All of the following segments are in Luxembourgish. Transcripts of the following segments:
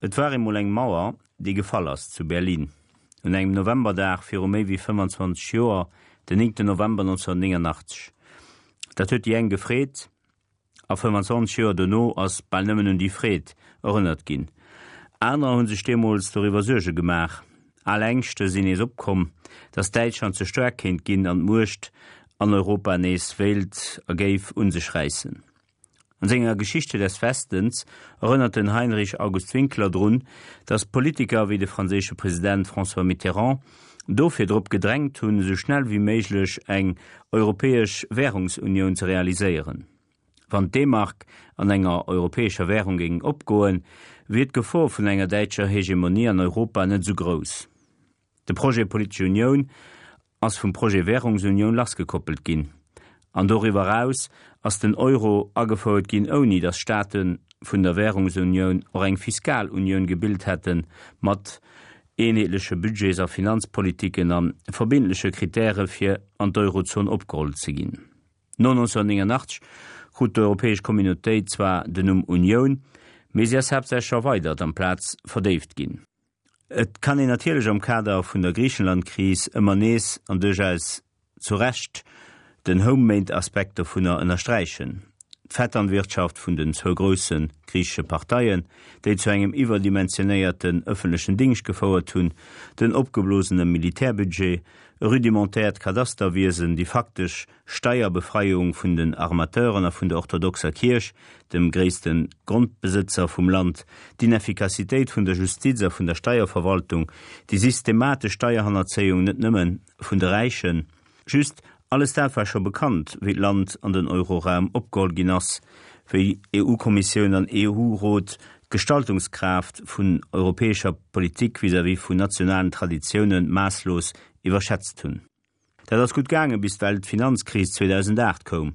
Et war eemol eng Mauer, déi gefall ass zu Berlin, un engem Novemberdag viru méi wéi 25 Joer, den 9 November 1989. Dat huet déi eng gefreet, a 25 Joer dono ass bal nëmmen un déi Freed erënnert ginn. Anerer hu sech deemools doriwwer Suerge gemaach. Al Ängschte sinn nees opkomm, datt Däitschland ze staark kéint ginn an d'Muecht an Europa nees wéilt a géif un sech räissen. An senger Geschichte des Westens erënnert den Heinrich August Winkler drun, datt Politiker wéi de franséische President François Mitterrand dofir drop gedrängt hunn, esou schnell wéi méiglech eng europäesch Währungsunioun ze realiséieren. Wann d'D-Mark an enger europäescher Währung géing opgoen, wier d'Gefor vun enger däitscher Hegemonie an Europa net esou grouss. De Projet politesch Unioun ass vum Projet Währungsunioun lassgekoppelt ginn. An doriwwer eraus ass den Euro agefouert ginn, ouni datt Staate vun der Währungsunioun och eng Fiskalunioun gebilt hätte mat eenheetleche Budgets a Finanzpolitiken a verbindleche Kritäre fir an d'Eurozon opgeholl ze ginn. No 1989 krut d'Europäesch Communautéit zwar den Numm Unioun, mee si ass haaptsächlech erweidert amplaz verdéift ginn. Et kann een natierlech am Kader vun der Griichenland-Kris ëmmer nees, an duerchaus zu Recht, den Home-made-Aspekt dovunner ënnersträichen, d'Vetternwirtschaft vun den zwou grousse griichesche Parteien, déi zu engem iwwerdimensionéierten ëffentlechen Dingscht gefouert hunn, den opgeblosene Militärbudget, e rudimentäert Kadasterwiesen, déi faktesch Steierbefreiung vun den Armateuren a vun der orthodoxer Kierch, dem gréisste Grondbesëtzer vum Land, d'Ineffikassitéit vun der Justiz a vun der Steierverwaltung, déi systematesch Steierhannerzéiung net nëmme vun de Räichen. Just, alles dat war scho bekannt, wéi d'Land an den Euroraum opgeholl ginn ass, wéi EU-Kommissioun an EU-Rot d'Gestaltungskraaft vun europäescher Politik vis-à-vis vun nationalen Traditioune maasslos iwwerschätzt hunn. Dat ass gutt gaangen, bis d'Weltfinanzkris 2008 koum.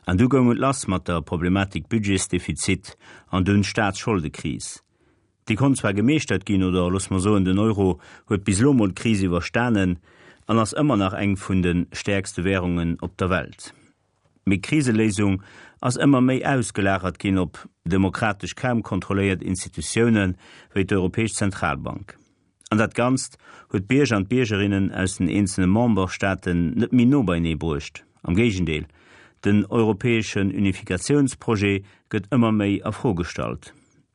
An du goung et lass mat der Problematik Budgetsdefizit an dunn Staatsscholdekris. Déi konnt zwar gemeeschtert ginn, oder loosse mer soen, den Euro huet bis elo mol d'Kris iwwerstanen an ass ëmmer nach eng vun de stäerkste Währungen op der Welt. Mee d'Kriseléisung ass ëmmer méi ausgelagert ginn op demokratesch kaum kontrolléiert Institutioune wéi d'Europäesch Zentralbank. An dat Ganzt huet d'Bierger an d'Biergerinnen aus den eenzele Memberstaaten net méi no beienee bruecht. Am Géigendeel, den europäeschen Unifikatiounsprojet gëtt ëmmer méi a Fro gestallt.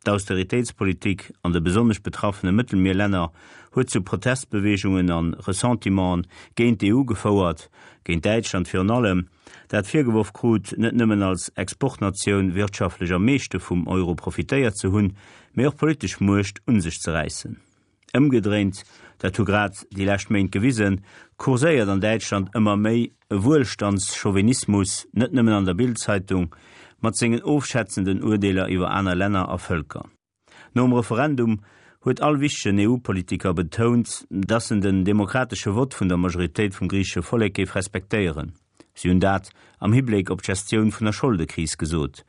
D'Austeritéitspolitik an de besonnesch betraffene Mëttelmierlänner huet zu Protestbeweegungen a Ressentimenten géint d'EU gefouert, géint Däitschland virun allem, dat virgeworf krut, net nëmmen als Exportnatioun wirtschaftlech am meeschte vum Euro profitéiert ze hunn, mee och politesch Muecht un sech ze räissen. Ëmgedréint, dat hu grad déi lescht Méint gewisen, kurséiert an Däitschland ëmmer méi e Wuelstandschauvinismus, net nëmmen an der Bild-Zeitung, mat sengen ofschätzenden Urdeeler iwwer aner Länner a Vëlker. Nom Referendum huet all wichtegen EU-Politiker betount, datt en den demokratesche Vott vun der Majoritéit vum griichesche Vollek géif respektéieren. Si hunn dat am Hibléck op d'Gestioun vun der Scholdekris gesot.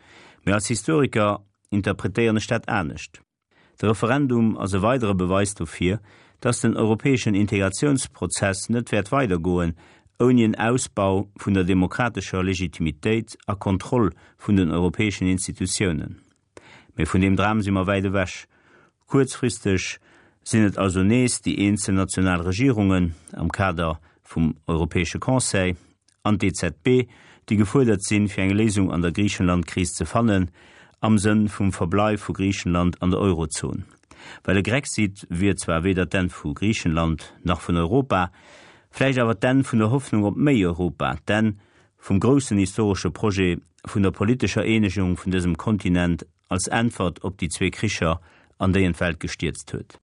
Mee als Historiker interpretéieren ech dat anescht. De Referendum ass e weidere Beweis dofir, dass den europäeschen Integratiounsprozess net wäert weidergoen, ouni en Ausbau vun der demokratescher Legitimitéit a Kontroll vun den europäeschen Institutiounen. Mee vun deem Dram si mer wäit ewech. Kuerzfristeg sinn et also nees déi eenzel national Regierungen am Kader vum Europäesche Conseil, an d'EZB, déi gefuerdert sinn, fir eng Léisung an der Griichenland-Kris ze fannen, am Sënn vum Verbleif vu Griichenland an der Eurozon. Well e Grexit wier zwar weder d'Enn vu Griichenland nach vun Europa, vläicht awer d'Enn vun der Hoffnung op méi Europa, d'Enn vum groussen historesche Projet vun der politescher Eenegung vun dësem Kontinent als Äntwert op déi zwee Kricher, an déi en d'Welt gestierzt huet.